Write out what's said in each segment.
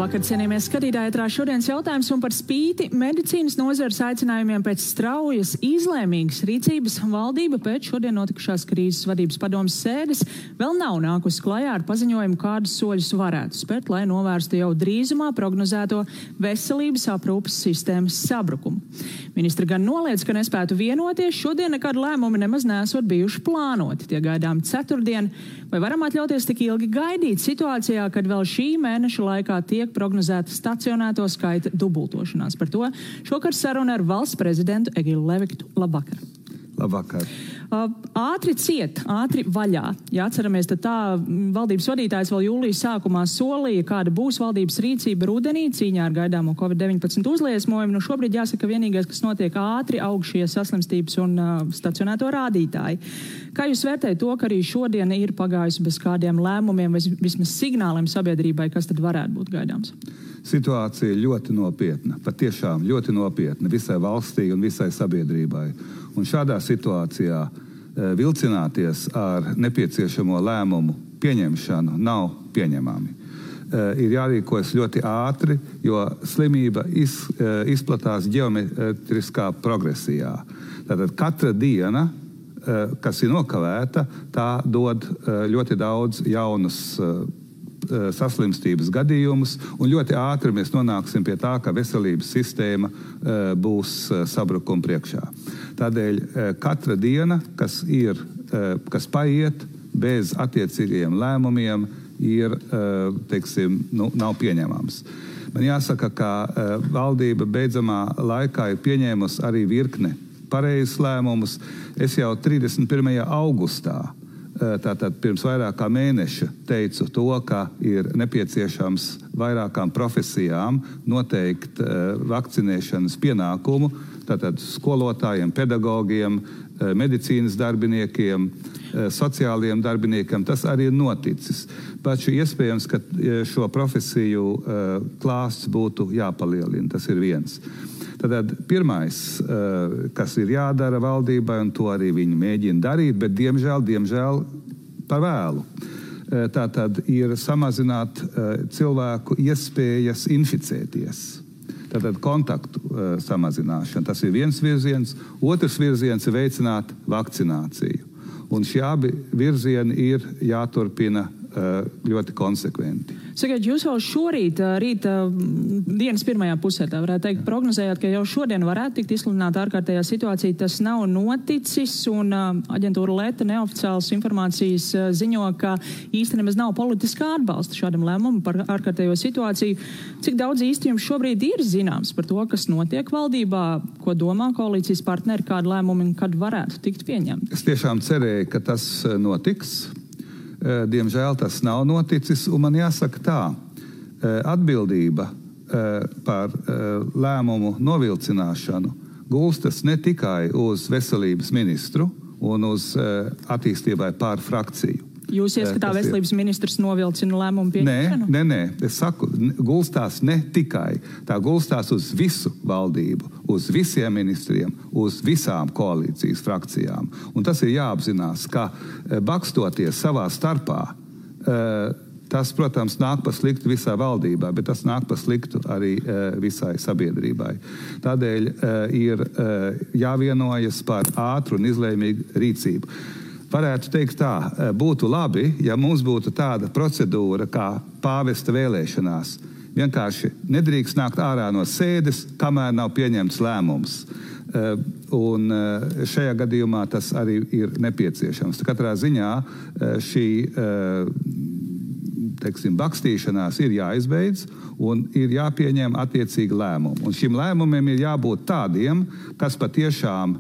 Labvakar, cienījamies skatītāji, ētrā šodienas jautājums un par spīti medicīnas nozares aicinājumiem pēc straujas, izlēmīgas rīcības valdība pēc šodien notikušās krīzes vadības padomes sēdes vēl nav nākusi klajā ar paziņojumu, kādus soļus varētu spērt, lai novērstu jau drīzumā prognozēto veselības aprūpes sistēmas sabrukumu. Ministri gan noliedz, ka nespētu vienoties, šodien nekādi lēmumi nemaz nesot bijuši plānoti. Tie gaidām ceturtdien. Vai varam atļauties tik ilgi gaidīt situācijā, kad vēl šī mēneša laikā tiek prognozēta stacionēto skaita dubultošanās? Par to šokar saruna ar valsts prezidentu Egilu Leviktu. Labvakar. Labvakar. Ātri ciet, ātri vaļā. Ja atceramies, tad tā valdības vadītājs vēl jūlijas sākumā solīja, kāda būs valdības rīcība rudenī cīņā ar gaidāmo Covid-19 uzliesmojumu. Nu šobrīd jāsaka, vienīgais, kas notiek ātri, aug šie saslimstības un stacionēto rādītāji. Kā jūs vērtējat to, ka arī šodien ir pagājusi bez kādiem lēmumiem vai vismaz signāliem sabiedrībai, kas tad varētu būt gaidāms? Situācija ir ļoti nopietna, patiešām ļoti nopietna visai valstī un visai sabiedrībai. Un šādā situācijā vilcināties ar nepieciešamo lēmumu pieņemšanu nav pieņemami. Ir jārīkojas ļoti ātri, jo slimība izplatās ģeometriskā progresijā. Tātad katra diena, kas ir nokavēta, tā dod ļoti daudz jaunus saslimstības gadījumus, un ļoti ātri mēs nonāksim pie tā, ka veselības sistēma būs sabrukuma priekšā. Tādēļ katra diena, kas paiet bez attiecīgiem lēmumiem, ir, nav pieņemams. Man jāsaka, ka valdība beidzamā laikā ir pieņēmusi arī virkne pareizes lēmumus. Es jau 31. augustā, tātad pirms vairāk kā mēneša, teicu to, ka ir nepieciešams vairākām profesijām noteikt vakcinēšanas pienākumu, tātad skolotājiem, pedagogiem, medicīnas darbiniekiem, sociālajiem darbiniekiem. Tas arī ir noticis. Taču iespējams, ka šo profesiju klāsts būtu jāpalielina. Tas ir viens. Tātad pirmais, kas ir jādara valdībai, un to arī viņi mēģina darīt, bet diemžēl par vēlu. Tātad ir samazināt cilvēku iespējas inficēties. Tātad kontaktu samazināšana. Tas ir viens virziens. Otrs virziens ir veicināt vakcināciju. Un šie abi virzieni ir jāturpina ļoti konsekventi. Sakiet, jūs jau šorīt, rīta dienas pirmajā pusē, tā varētu teikt, prognozējāt, ka jau šodien varētu tikt izsludināta ārkārtējā situācija. Tas nav noticis, un aģentūra Leta neoficiālas informācijas ziņo, ka īsti nemaz nav politiskā atbalsta šādam lēmumam par ārkārtējo situāciju. Cik daudz īsti jums šobrīd ir zināms par to, kas notiek valdībā, ko domā koalīcijas partneri, kādu lēmumu un kad varētu tikt pieņemt? Es tiešām cerēju, ka tas notiks. Diemžēl tas nav noticis, un man jāsaka tā, atbildība par lēmumu novilcināšanu gulstas ne tikai uz veselības ministru un uz attīstībai pār frakciju. Jūs ieskatā veselības ministrs novilcina lēmumu pieņemšanu? Nē. Es saku, gulstās ne tikai. Tā gulstās uz visu valdību, uz visiem ministriem, uz visām koalīcijas frakcijām. Un tas ir jāapzinās, ka bakstoties savā starpā, tas, protams, nāk pa sliktu visā valdībā, bet tas nāk pa sliktu arī visai sabiedrībai. Tādēļ ir jāvienojas par ātru un izlēmīgu rīcību. Varētu teikt tā, būtu labi, ja mums būtu tāda procedūra kā pāvesta vēlēšanās. Vienkārši nedrīkst nākt ārā no sēdes, kamēr nav pieņemts lēmums. Un šajā gadījumā tas arī ir nepieciešams. Katrā ziņā šī bakstīšanās ir jāizbeidz un ir jāpieņem attiecīgi lēmumi. Un šim lēmumiem ir jābūt tādiem, kas patiešām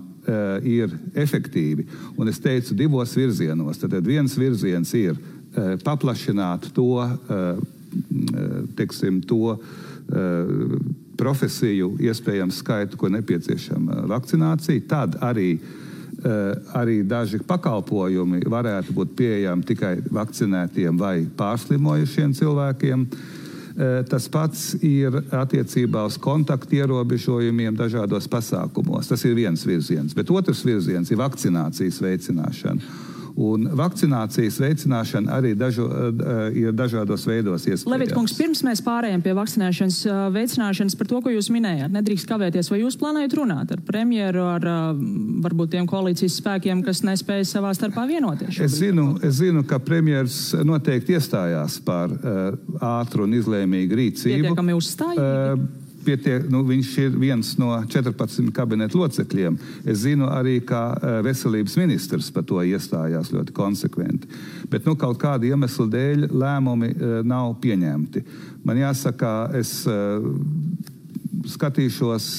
ir efektīvi. Un es teicu divos virzienos. Tad viens virziens ir paplašināt to profesiju iespējams skaitu, ko nepieciešama vakcinācija. Tad arī daži pakalpojumi varētu būt pieejami tikai vakcinētiem vai pārslimojušiem cilvēkiem. Tas pats ir attiecībā uz kontaktu ierobežojumiem dažādos pasākumos. Tas ir viens virziens, bet otrs virziens ir vakcinācijas veicināšana. Un vakcinācijas veicināšana arī ir dažādos veidos iespējams. Levit kungs, pirms mēs pārējām pie vakcinēšanas veicināšanas par to, ko jūs minējāt, nedrīkst kavēties, vai jūs plānojat runāt ar premjeru, ar varbūt tiem koalīcijas spēkiem, kas nespēja savā starpā vienoties? Es zinu, ka premjers noteikti iestājās par ātru un izlēmīgu rīcību. Pietiekami uzstājīgi? Viņš ir viens no 14 kabineta locekļiem. Es zinu arī, ka veselības ministrs par to iestājās ļoti konsekventi. Bet kaut kāda iemesla dēļ lēmumi nav pieņemti. Man jāsaka, es skatīšos,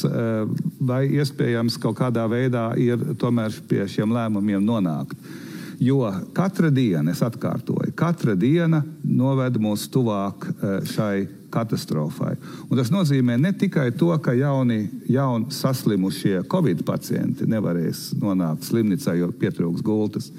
vai iespējams kaut kādā veidā ir tomēr pie šiem lēmumiem nonākt. Jo katra diena, es atkārtoju, katra diena noved mūs tuvāk šai katastrofai. Un tas nozīmē ne tikai to, ka jauni saslimušie Covid pacienti nevarēs nonākt slimnīcā, jo pietrūks gultas,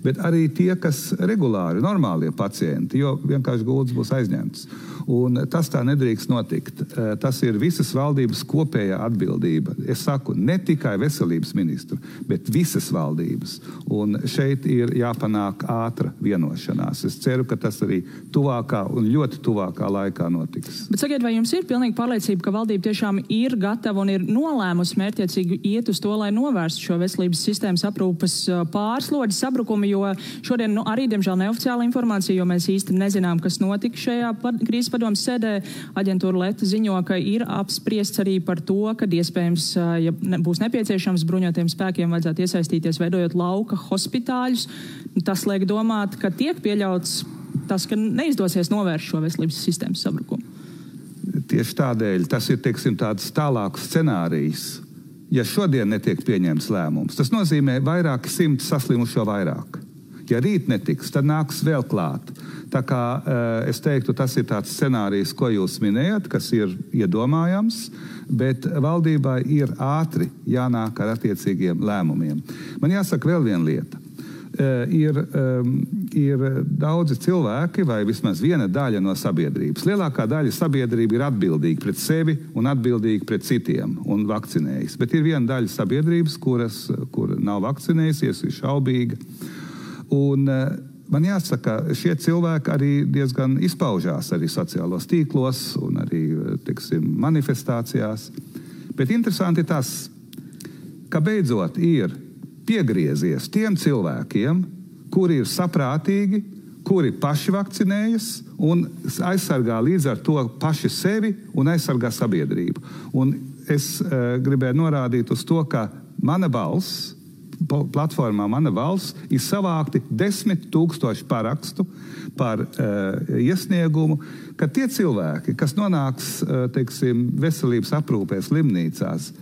bet arī tie, kas regulāri, normālie pacienti, jo vienkārši gultas būs aizņemtas. Un tas tā nedrīkst notikt. Tas ir visas valdības kopējā atbildība. Es saku, ne tikai veselības ministru, bet visas valdības. Un šeit ir jāpanāk ātra vienošanās. Es ceru, ka tas arī tuvākā un ļoti tuvākā laikā notiks. Bet sakiet, vai jums ir pilnīgi pārliecība, ka valdība tiešām ir gatava un ir nolēmusi mērķiecīgi iet uz to, lai novērstu šo veselības sistēmas aprūpes pārslodzi sabrukumu, jo šodien arī, diemžēl, neoficiāla informācija, jo mēs īsti nezinām, kas notika šajā krīzes padomes sēdē. Aģentūra Leta ziņo, ka ir apspriests arī par to, ka iespējams, ja būs nepieciešams, bruņotiem spēkiem vajadzētu iesaistīties, veidojot lauka hospitāļus. Tas liek domāt, ka tiek pieļauts tas, ka neizdosies novērst šo veselības sistēmas sabrukumu. Tieši tādēļ tas ir, tāds tālāks scenārijs. Ja šodien netiek pieņemts lēmums, tas nozīmē vairāki simti saslimušo vairāk. Ja rīt netiks, tad nāks vēl klāt. Tā kā es teiktu, tas ir tāds scenārijs, ko jūs minējat, kas ir iedomājams, bet valdībai ir ātri jānāk ar attiecīgiem lēmumiem. Man jāsaka vēl viena lieta. Ir daudzi cilvēki, vai vismaz viena daļa no sabiedrības. Lielākā daļa sabiedrība ir atbildīga pret sevi un atbildīga pret citiem un vakcinējas. Bet ir viena daļa sabiedrības, kur nav vakcinējusies, ir šaubīga. Un man jāsaka, šie cilvēki arī diezgan izpaužās arī sociālos tīklos un arī, manifestācijās. Bet interesanti tas, ka beidzot ir piegriezies tiem cilvēkiem, kuri ir saprātīgi, kuri paši vakcinējas un aizsargā līdz ar to paši sevi un aizsargā sabiedrību. Un es gribēju norādīt uz to, ka mana balss, platformā Mana valsts, ir savākti 10 000 parakstu par iesniegumu, ka tie cilvēki, kas nonāks, veselības aprūpē slimnīcās,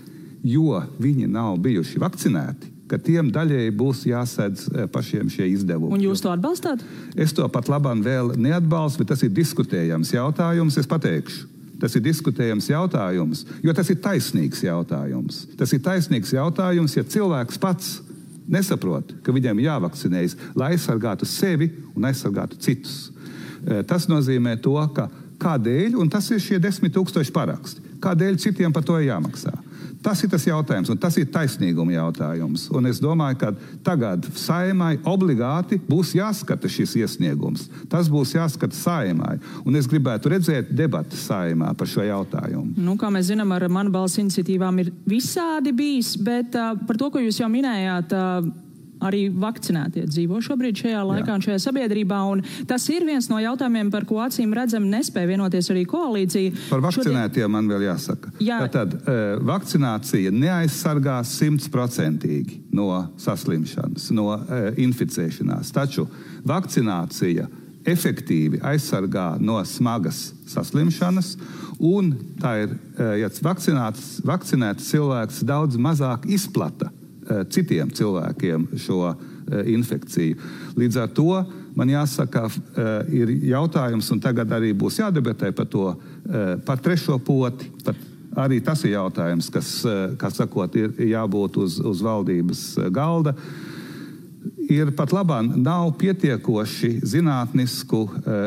jo viņi nav bijuši vakcinēti, ka tiem daļēji būs jāsedz pašiem šie izdevumi. Un jūs to atbalstāt? Es to pat labam vēl neatbalstu, bet tas ir diskutējams jautājums, es pateikšu. Tas ir diskutējams jautājums, jo tas ir taisnīgs jautājums. Tas ir taisnīgs jautājums, ja cilvēks pats nesaprot, ka viņam jāvakcinējas, lai aizsargātu sevi un aizsargātu citus. Tas nozīmē to, ka kādēļ, un tas ir šie 10 000 paraksti, kādēļ citiem par to jāmaksā. Tas ir tas jautājums, un tas ir taisnīguma jautājums. Un es domāju, ka tagad Saeimai obligāti būs jāskata šis iesniegums. Tas būs jāskata Saeimai. Un es gribētu redzēt debatu Saeimā par šo jautājumu. Kā mēs zinām, ar Mana balss iniciatīvām ir visādi bijis, bet par to, ko jūs jau minējāt, arī vakcinētie dzīvo šobrīd šajā laikā un šajā sabiedrībā, un tas ir viens no jautājumiem, par ko acīm redzam nespēja vienoties arī koalīcija. Par vakcinētiem man vēl jāsaka. Tad vakcinācija neaizsargās 100% no saslimšanas, no inficēšanās, taču vakcinācija efektīvi aizsargā no smagas saslimšanas, un tā ir, ja vakcinēts cilvēks daudz mazāk izplata citiem cilvēkiem šo infekciju. Līdz ar to man jāsaka, ir jautājums, un tagad arī būs jādebatē par to, par trešo poti. Arī tas ir jautājums, kas, kā sakot, ir jābūt uz valdības galda. Ir pat labāk nav pietiekoši zinātnisku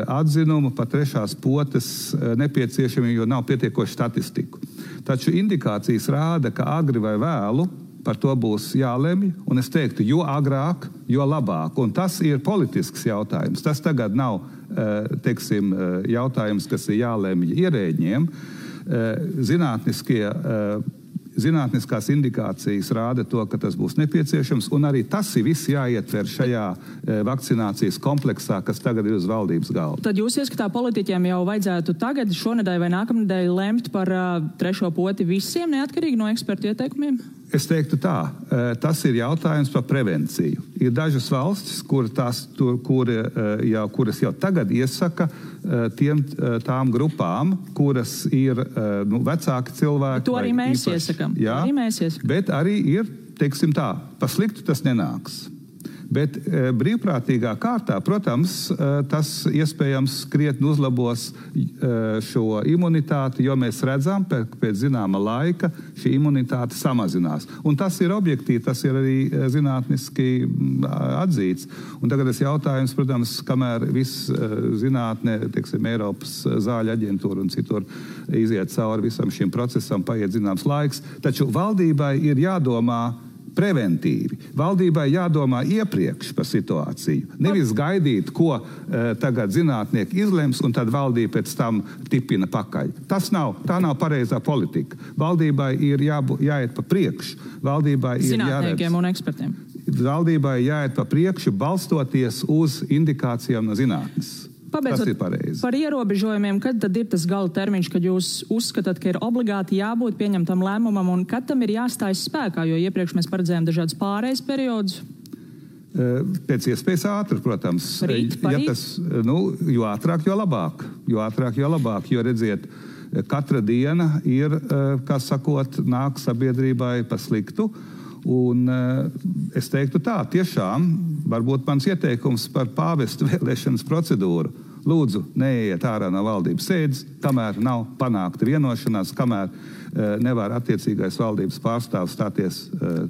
atzinumu par trešās potes nepieciešami, jo nav pietiekoši statistiku. Taču indikācijas rāda, ka agri vai vēlu par to būs jālemj, un es teiktu, jo agrāk, jo labāk. Un tas ir politisks jautājums. Tas tagad nav, teiksim, jautājums, kas ir jālemj ierēģiem. Zinātniskās indikācijas rāda to, ka tas būs nepieciešams, un arī tas ir viss jāietver šajā vakcinācijas kompleksā, kas tagad ir uz valdības galda. Tad jūs ieskatā politiķiem jau vajadzētu tagad, šonedēļ vai nākamnedēļ lemt par trešo poti visiem, neatkarīgi no ekspertu ieteikumiem? Es teiktu tā, tas ir jautājums par prevenciju. Ir dažas valstis, kuras jau tagad iesaka tām grupām, kuras ir vecāki cilvēki. To arī mēs iesakam. Jā, bet arī ir, teiksim tā, pa sliktu tas nenāks. Bet brīvprātīgā kārtā, protams, tas iespējams krietni uzlabos šo imunitāti, jo mēs redzam, pēc zināma laika šī imunitāte samazinās. Un tas ir objektīvi, tas ir arī zinātniski atzīts. Un tagad es jautājums, protams, kamēr viss zinātne, teiksim, Eiropas zāļu aģentūra un citur iziet cauri visam šim procesam, paiet zināms laiks, taču valdībai ir jādomā preventīvi. Valdībai jādomā iepriekš par situāciju. Nevis gaidīt, ko tagad zinātnieki izlems, un tad valdība pēc tam tipina pakaļ. Tā nav pareizā politika. Valdībai ir jāiet pa priekšu. Zinātniekiem un ekspertiem. Valdībai jāiet pa priekšu, balstoties uz indikācijām no zinātnes. Tas ir pareizi. Par ierobežojumiem, kad tad ir tas gala termiņš, kad jūs uzskatāt, ka ir obligāti jābūt pieņemtam lēmumam un kad tam ir jāstājas spēkā, jo iepriekš mēs paredzējām dažādas pārejas periodus? Pēc iespējas ātri, protams. Jo ātrāk, jo labāk. Jo redziet, katra diena ir, kā sakot, nāk sabiedrībai pa sliktu. Un es teiktu tā, tiešām, varbūt mans ieteikums par pāvestu vēlēšanas procedūru. Lūdzu, neiet ārā no valdības sēdes, kamēr nav panākta vienošanās, kamēr nevar attiecīgais valdības pārstāvs stāties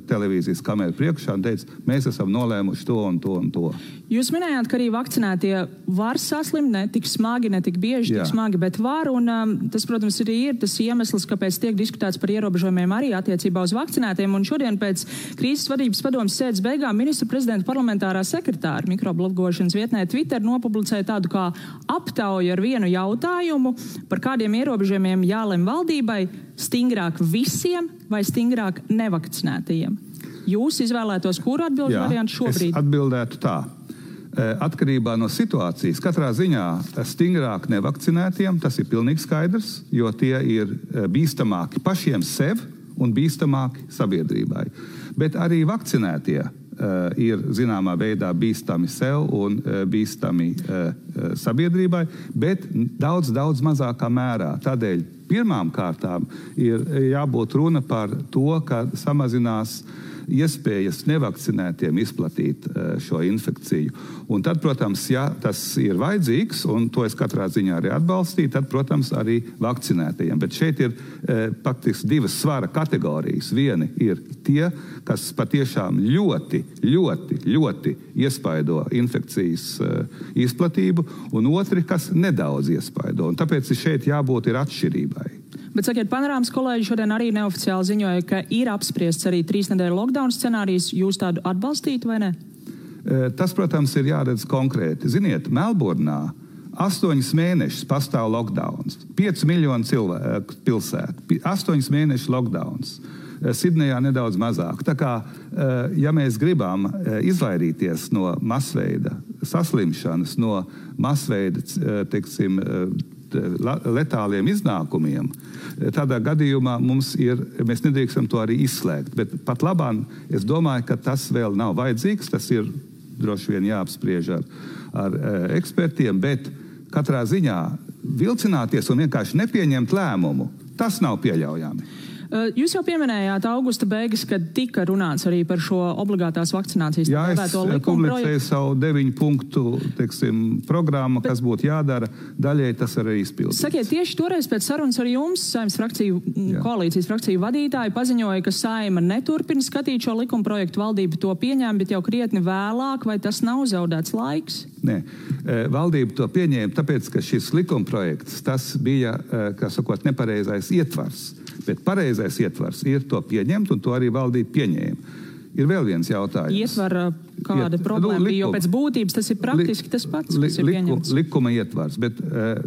televīzijas kameru priekšā un teica, mēs esam nolēmuši to un to un to. Jūs minējāt, ka arī vakcinētie var saslimt, ne tik smagi, ne tik bieži, tik smagi, bet var, un tas, protams, arī ir tas iemesls, kāpēc tiek diskutēts par ierobežojumiem arī attiecībā uz vakcinētiem, un šodien pēc krīzes vadības padomes sēdes beigām ministra prezidenta parlamentārā sekretāra mikroblogošanas vietnē Twitter nopublicēja tādu kā aptauju ar vienu jautājumu, par kādiem ierobežojumiem jālem valdībai, stingrāk visiem vai stingrāk nevakcinētajiem. Jūs izvēlētos, kuru atbilžu variantu šobrīd? Es atbildētu tā. Atkarībā no situācijas, katrā ziņā stingrāk nevakcinētiem, tas ir pilnīgi skaidrs, jo tie ir bīstamāki pašiem sev un bīstamāki sabiedrībai. Bet arī vakcinētie ir zināmā veidā bīstami sev un bīstami sabiedrībai, bet daudz mazākā mērā. Tādēļ pirmām kārtām ir jābūt runa par to, ka samazinās iespējas nevakcinētiem izplatīt šo infekciju. Un tad, protams, ja tas ir vajadzīgs, un to es katrā ziņā arī atbalstīju, tad, protams, arī vakcinētajiem. Bet šeit ir faktiski divas svara kategorijas. Vieni ir tie, kas patiešām ļoti iespaido infekcijas izplatību, un otri, kas nedaudz iespaido. Un tāpēc šeit jābūt ir atšķirībai. Bet, sakiet, Panorāmas kolēģi šodien arī neoficiāli ziņoja, ka ir apspriests arī 3 nedēļu lockdown scenārijs. Jūs tādu atbalstītu vai ne? Tas, protams, ir jāredz konkrēti. Ziniet, Melburnā 8 mēnešus pastāv lockdowns. 5 miljonu cilvēku pilsētu. 8 mēnešu lockdowns. Sidnejā nedaudz mazāk. Tā kā, ja mēs gribam izvairīties no masveida saslimšanas, no masveida, teiksim, letāliem iznākumiem, tādā gadījumā mēs nedrīkstam to arī izslēgt. Bet pat labāk es domāju, ka tas vēl nav vajadzīgs, tas ir droši vien jāapspriež ar ekspertiem, bet katrā ziņā vilcināties un vienkārši nepieņemt lēmumu, tas nav pieļaujami. Jūs jau pieminējāt augusta beigas, kad tika runāts arī par šo obligātās vakcinācijas likumu projektu. Publicēju savu 9 punktu, programmu, kas būtu jādara, daļai tas arī izpildīts. Sakiet, tieši toreiz pēc sarunas ar jums, Saeimas koalīcijas frakciju vadītāji paziņoja, ka Saeima neturpina skatīt šo likuma projektu, valdība to pieņēma, bet jau krietni vēlāk, vai tas nav zaudēts laiks? Nē. Valdība to pieņēma, tāpēc, ka šis likumprojekts, tas bija, kā sakot, nepareizais ietvars. Bet pareizais ietvars ir to pieņemt, un to arī valdība pieņēma. Ir vēl viens jautājums. Ietvara kāda problēma bija, jo pēc būtības tas ir praktiski tas pats, kas ir pieņemts. Likuma ietvars, bet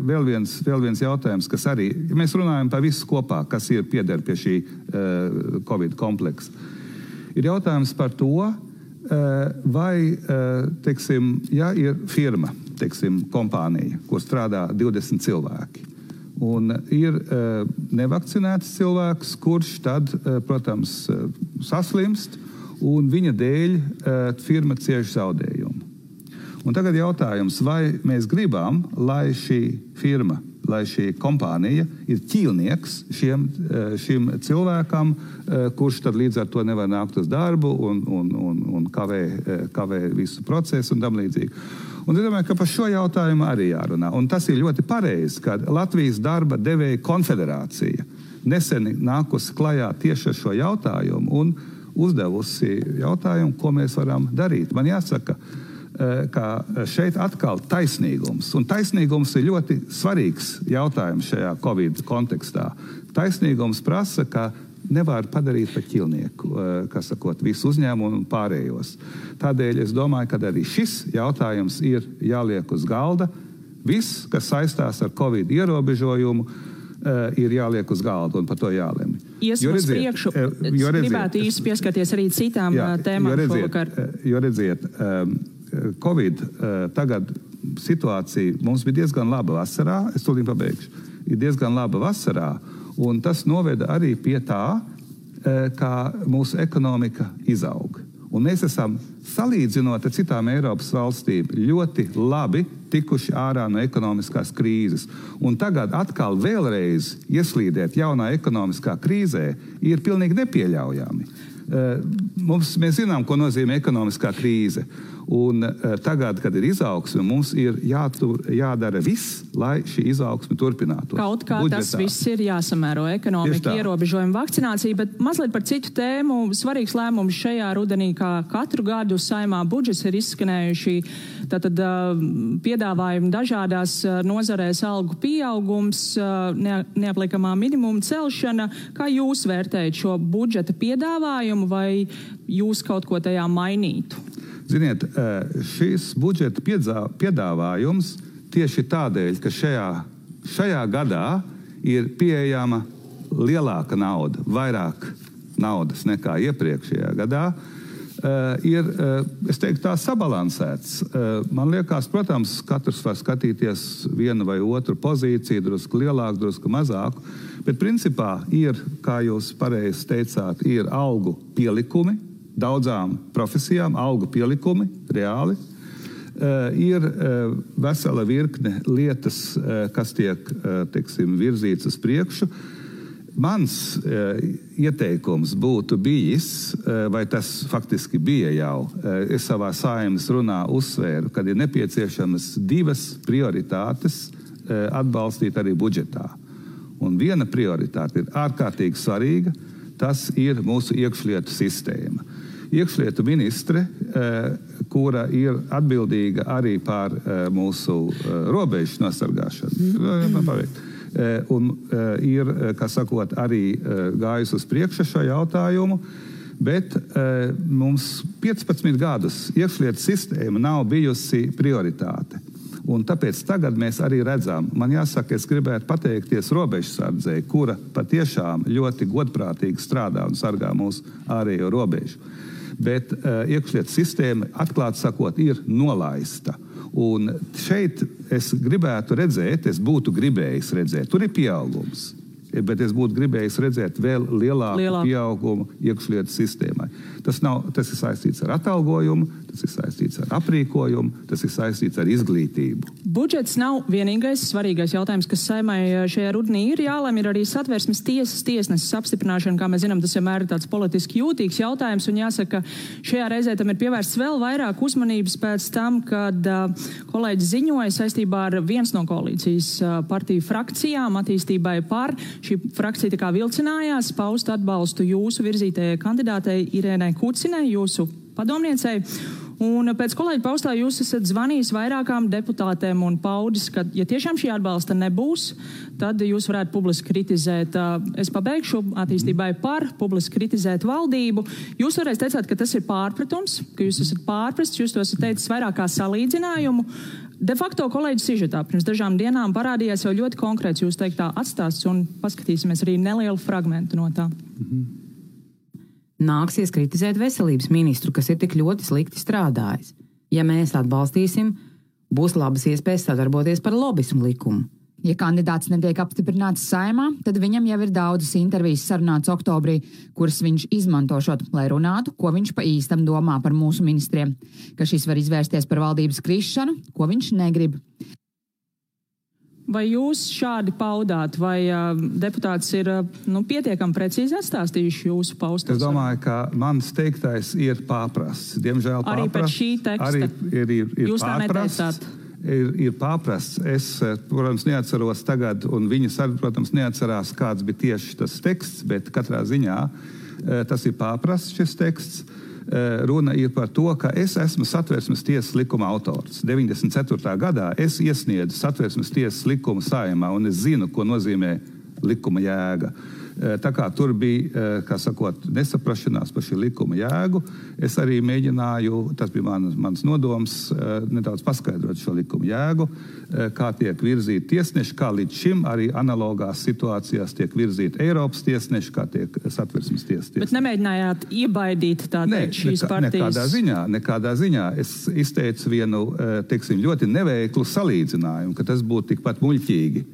vēl viens jautājums, kas arī, ja mēs runājam par visu kopā, kas ir pieder pie šī Covid kompleksa, ir jautājums par to, vai, teiksim, ja ir firma, teiksim, kompānija, kur strādā 20 cilvēki, un ir nevakcinēts cilvēks, kurš tad, protams, saslimst, un viņa dēļ firma cieš zaudējumu. Un tagad jautājums, vai mēs gribam, lai šī firma, lai šī kompānija ir ķīlnieks šim cilvēkam, kurš tad līdz ar to nevar nākt uz darbu un kavē visu procesu un tam līdzīgi. Un es domāju, ka par šo jautājumu arī jārunā. Un tas ir ļoti pareizi, ka Latvijas darba devēja konfederācija nesen nākusi klajā tieši ar šo jautājumu un uzdevusi jautājumu, ko mēs varam darīt. Man jāsaka, ka šeit atkal taisnīgums. Un taisnīgums ir ļoti svarīgs jautājums šajā Covid kontekstā. Taisnīgums prasa, ka nevar padarīt par ķilnieku, kas sakot, visu uzņēmumu un pārējos. Tādēļ es domāju, ka arī šis jautājums ir jāliek uz galda. Viss, kas saistās ar Covid ierobežojumu, ir jāliek uz galda un par to jālemj. Iesim uz priekšu. Es gribētu īsti pieskarties arī citām tēmām šovakar. Jo redziet, Covid tagad situācija mums bija diezgan laba vasarā, es tūlīt pabeigšu, ir diezgan laba vasarā, un tas noveda arī pie tā, kā mūsu ekonomika izaug. Un mēs esam, salīdzinot ar citām Eiropas valstīm, ļoti labi tikuši ārā no ekonomiskās krīzes. Un tagad atkal vēlreiz ieslīdēt jaunā ekonomiskā krīzē ir pilnīgi nepieļaujami. Mēs zinām, ko nozīmē ekonomiskā krīze. Un tagad, kad ir izaugsme, mums ir jādara viss, lai šī izaugsme turpinātos. Kaut kā budžetā. Tas viss ir jāsamēro ekonomika, ierobežojuma, vakcinācija, bet mazliet par citu tēmu. Svarīgs lēmums šajā rudenī, kā katru gadu Saeimā budžets ir izskanējuši tātad piedāvājumi dažādās nozarēs, algu pieaugums, neapliekamā minimuma celšana. Kā jūs vērtējat šo budžeta piedāvājumu, vai jūs kaut ko tajā mainītu? Ziniet, šis budžeta piedāvājums tieši tādēļ, ka šajā gadā ir pieejama lielāka nauda, vairāk naudas nekā iepriekšējā gadā, ir, es teiktu, tā sabalansēts. Man liekas, protams, katrs var skatīties vienu vai otru pozīciju, drusku lielāku, drusku mazāku, bet principā ir, kā jūs pareizi teicāt, ir algu pielikumi, daudzām profesijām, algu pielikumi, reāli. Ir vesela virkne lietas, kas tiek, teiksim, virzīts uz priekšu. Mans ieteikums būtu bijis, vai tas faktiski bija jau, es savā Saeimas runā uzsvēru, kad ir nepieciešamas divas prioritātes atbalstīt arī budžetā. Un viena prioritāte ir ārkārtīgi svarīga, tas ir mūsu iekšlietu sistēma. Iekšlietu ministre, kura ir atbildīga arī par mūsu robežu nosargāšanu, un ir, kā sakot, arī gājusi uz priekšu šo jautājumu, bet mums 15 gadus iekšlietu sistēma nav bijusi prioritāte. Un tāpēc tagad mēs arī redzam, man jāsaka, es gribētu pateikties robežsardzei, kura patiešām ļoti godprātīgi strādā un sargā mūsu ārējo robežu. Bet iekšlietu sistēma, atklāt sakot, ir nolaista. Un šeit es gribētu redzēt, es būtu gribējis redzēt, tur ir pieaugums, bet es būtu gribējis redzēt vēl lielāku pieaugumu iekšlietu sistēmai. Tas ir saistīts ar atalgojumu, tas ir saistīts ar aprīkojumu, tas ir saistīts ar izglītību. Budžets nav vienīgais svarīgais jautājums, kas Saeimai šajā rudenī ir jālem, ir arī Satversmes tiesas tiesneses apstiprināšana, kā mēs zinām, tas vienmēr ir tāds politiski jūtīgs jautājums, un jāsaka, šajā reizē tam ir pievērsts vēl vairāk uzmanības pēc tam, kad kolēģis ziņoja saistībā ar viens no koalīcijas partiju frakcijām attīstībai par. Šī frakcija tā kā vilcinājās paust atbalstu jūsu virzītajai kandidātei Irēnai Kucinai, jūsu padomniecei. Un pēc kolēģa paustā jūs esat zvanījis vairākām deputātēm un paudis, ka, ja tiešām šī atbalsta nebūs, tad jūs varētu publiski kritizēt, es pabeigšu attīstībai par, publiski kritizēt valdību. Jūs toreiz teicāt, ka tas ir pārpratums, ka jūs esat pārprasts, jūs to esat teicis vairāk kā salīdzinājumu. De facto kolēģis sižetā pirms dažām dienām parādījās jau ļoti konkrēts jūs teiktā atstāsts, un paskatīsimies arī nelielu fragmentu no tā. Nāksies kritizēt veselības ministru, kas ir tik ļoti slikti strādājis. Ja mēs atbalstīsim, būs labas iespējas sadarboties par lobismu likumu. Ja kandidāts netiek apstiprināts Saeimā, tad viņam jau ir daudzas intervijas sarunāts oktobrī, kuras viņš izmantošot, lai runātu, ko viņš pa īstam domā par mūsu ministriem, ka šis var izvērsties par valdības krišanu, ko viņš negrib. Vai jūs šādi paudāt, vai deputāts ir pietiekami precīzi atstāstījuši jūsu paustos? Es domāju, ka mans teiktais ir pārprasts. Diemžēl pārprasts. Arī pēc šī teksta? Arī ir jūs tā neteicāt? Ir pārprasts. Es, protams, neatceros tagad, un viņas arī, protams, neatcerās, kāds bija tieši tas teksts, bet katrā ziņā tas ir pārprasts šis teksts. Runa ir par to, ka es esmu Satversmes tiesas likuma autors. 94. gadā es iesniedzu Satversmes tiesas likumu Saeimā, un es zinu, ko nozīmē likuma jēga. Tā kā tur bija, kā sakot, nesaprašanās par šī likuma jēgu, es arī mēģināju, tas bija mans nodoms, nedaudz paskaidrot šo likuma jēgu, kā tiek virzīti tiesneši, kā līdz šim arī analogās situācijās tiek virzīti Eiropas tiesneši, kā tiek Satversmes tiesas tiesneši. Bet nemēģinājāt iebaidīt šīs partijas? Nekādā ziņā. Es izteicu vienu, teiksim, ļoti neveiklu salīdzinājumu, ka tas būtu tikpat muļķīgi,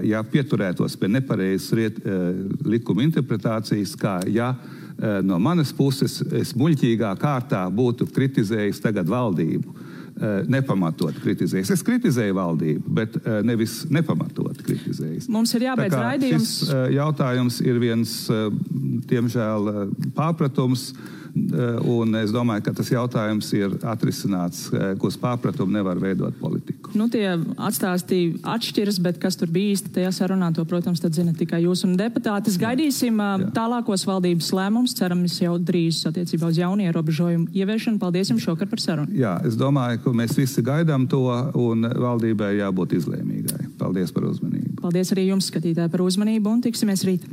ja pieturētos pie nepareizas likuma interpretācijas, kā ja no manas puses es muļķīgā kārtā būtu kritizējis tagad valdību. Nepamatot kritizējis. Es kritizēju valdību, bet nevis nepamatot kritizējis. Mums ir jābeidz raidījums. Šis jautājums ir viens, diemžēl, pārpratums, un es domāju, ka tas jautājums ir atrisināts, ka uz pārpratumu nevar veidot politiku. Tie atstāstī atšķiras, bet kas tur bija īsti tajā sarunā, to, protams, tad zina tikai jūs un deputātis. Gaidīsim tālākos valdības lēmumus, ceramies jau drīz attiecībā uz jaunu ierobežojumu ieviešanu. Paldies jums šokar par sarunu. Jā, es domāju, ka mēs visi gaidām to, un valdībai jābūt izlēmīgai. Paldies par uzmanību. Paldies arī jums, skatītāji, par uzmanību, un tiksimies rīt.